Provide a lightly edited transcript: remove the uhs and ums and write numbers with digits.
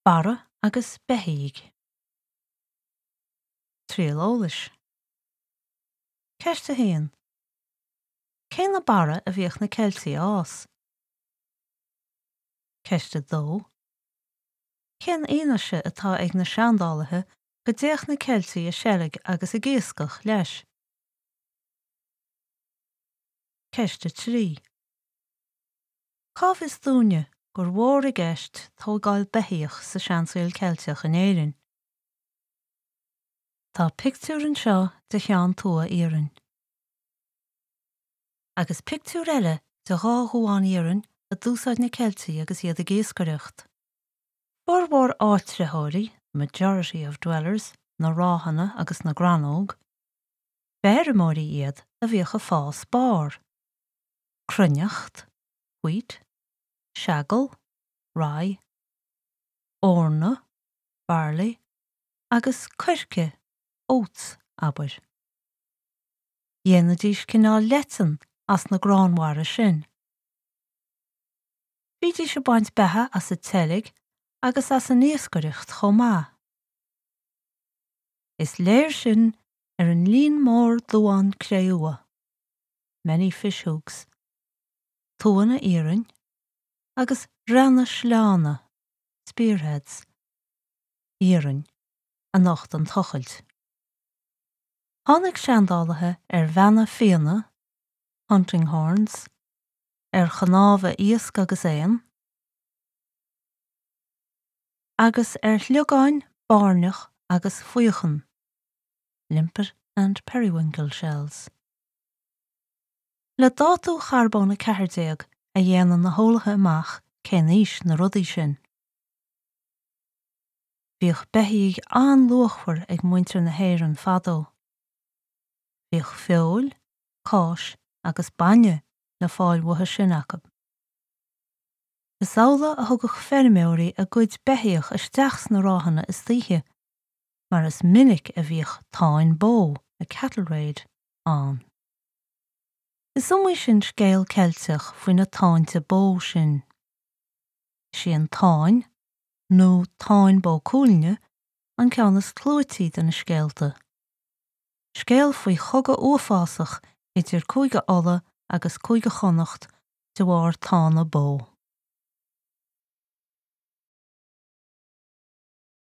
Barra agus beithígh. Triail eolais. Ceist 1. Cé na barra a bhíodh na Ceiltigh a fhás? Ceist 2. Cén fhianaise atá ag na seandálaithe go dtéadh na Ceiltigh ag seilg agus ag iascach leis? Ceist 3. Cá bhfios dúinne gur mhór i gceist tógáil beithíoch sa seansaol Ceilteach in Éirinn? Tá pictiúr anseo de cheann tua iarainn. Agus pictiúr eile de dhá dhuán iarainn a d'úsáid na Ceiltigh agus iad ag iascaireacht. Formhór áitritheoirí, the majority of dwellers, na ráthanna agus na gcrannóg, b'fheirmeoirí iad a bhíodh ag fás barr. cruithneacht, wheat, seagal, rye, eorna, barley, agus coirce, oats, abair. Dhéanaidís cineál leitean as na gránbharra sin. Bhídís ag baint beatha as an tseilg agus as an iascaireacht chomh maith. Is léir sin ar an líon mór duán cré-umha. many fish hooks, tuanna iarainn agus reanna sleánna, spearheads, iarainn, a nocht an tochailt. Tháinig seandálaithe ar bheanna fianna, hunting horns, ar chnámha iasc agus éan, agus ar shliogáin bairneach agus faochan, limpet and periwinkle shells. Le dátú charbón 14 a dhéanann na heolaithe amach cén aois na rudaí sin. Bhíodh beithígh an-luachmhar ag muintir na hÉireann fadó. Bhíodh feoil, cáis agus bainne le fáil uathu sin acu. Is amhlaidh a thugadh feirmeoirí a gcuid beithíoch isteach sna ráthanna istoíche mar is minic a bhíodh táin bó, a cattle raid, ann. Is iomaí sin scéal Ceilteach faoi na táinte bó sin. Is í an Táin, nó Táin Bó Cuailgne, an ceann is clúití de na scéalta. Scéal faoi chogadh uafásach idir Cúige Uladh agus Cúige Chonnacht de bharr tána bó.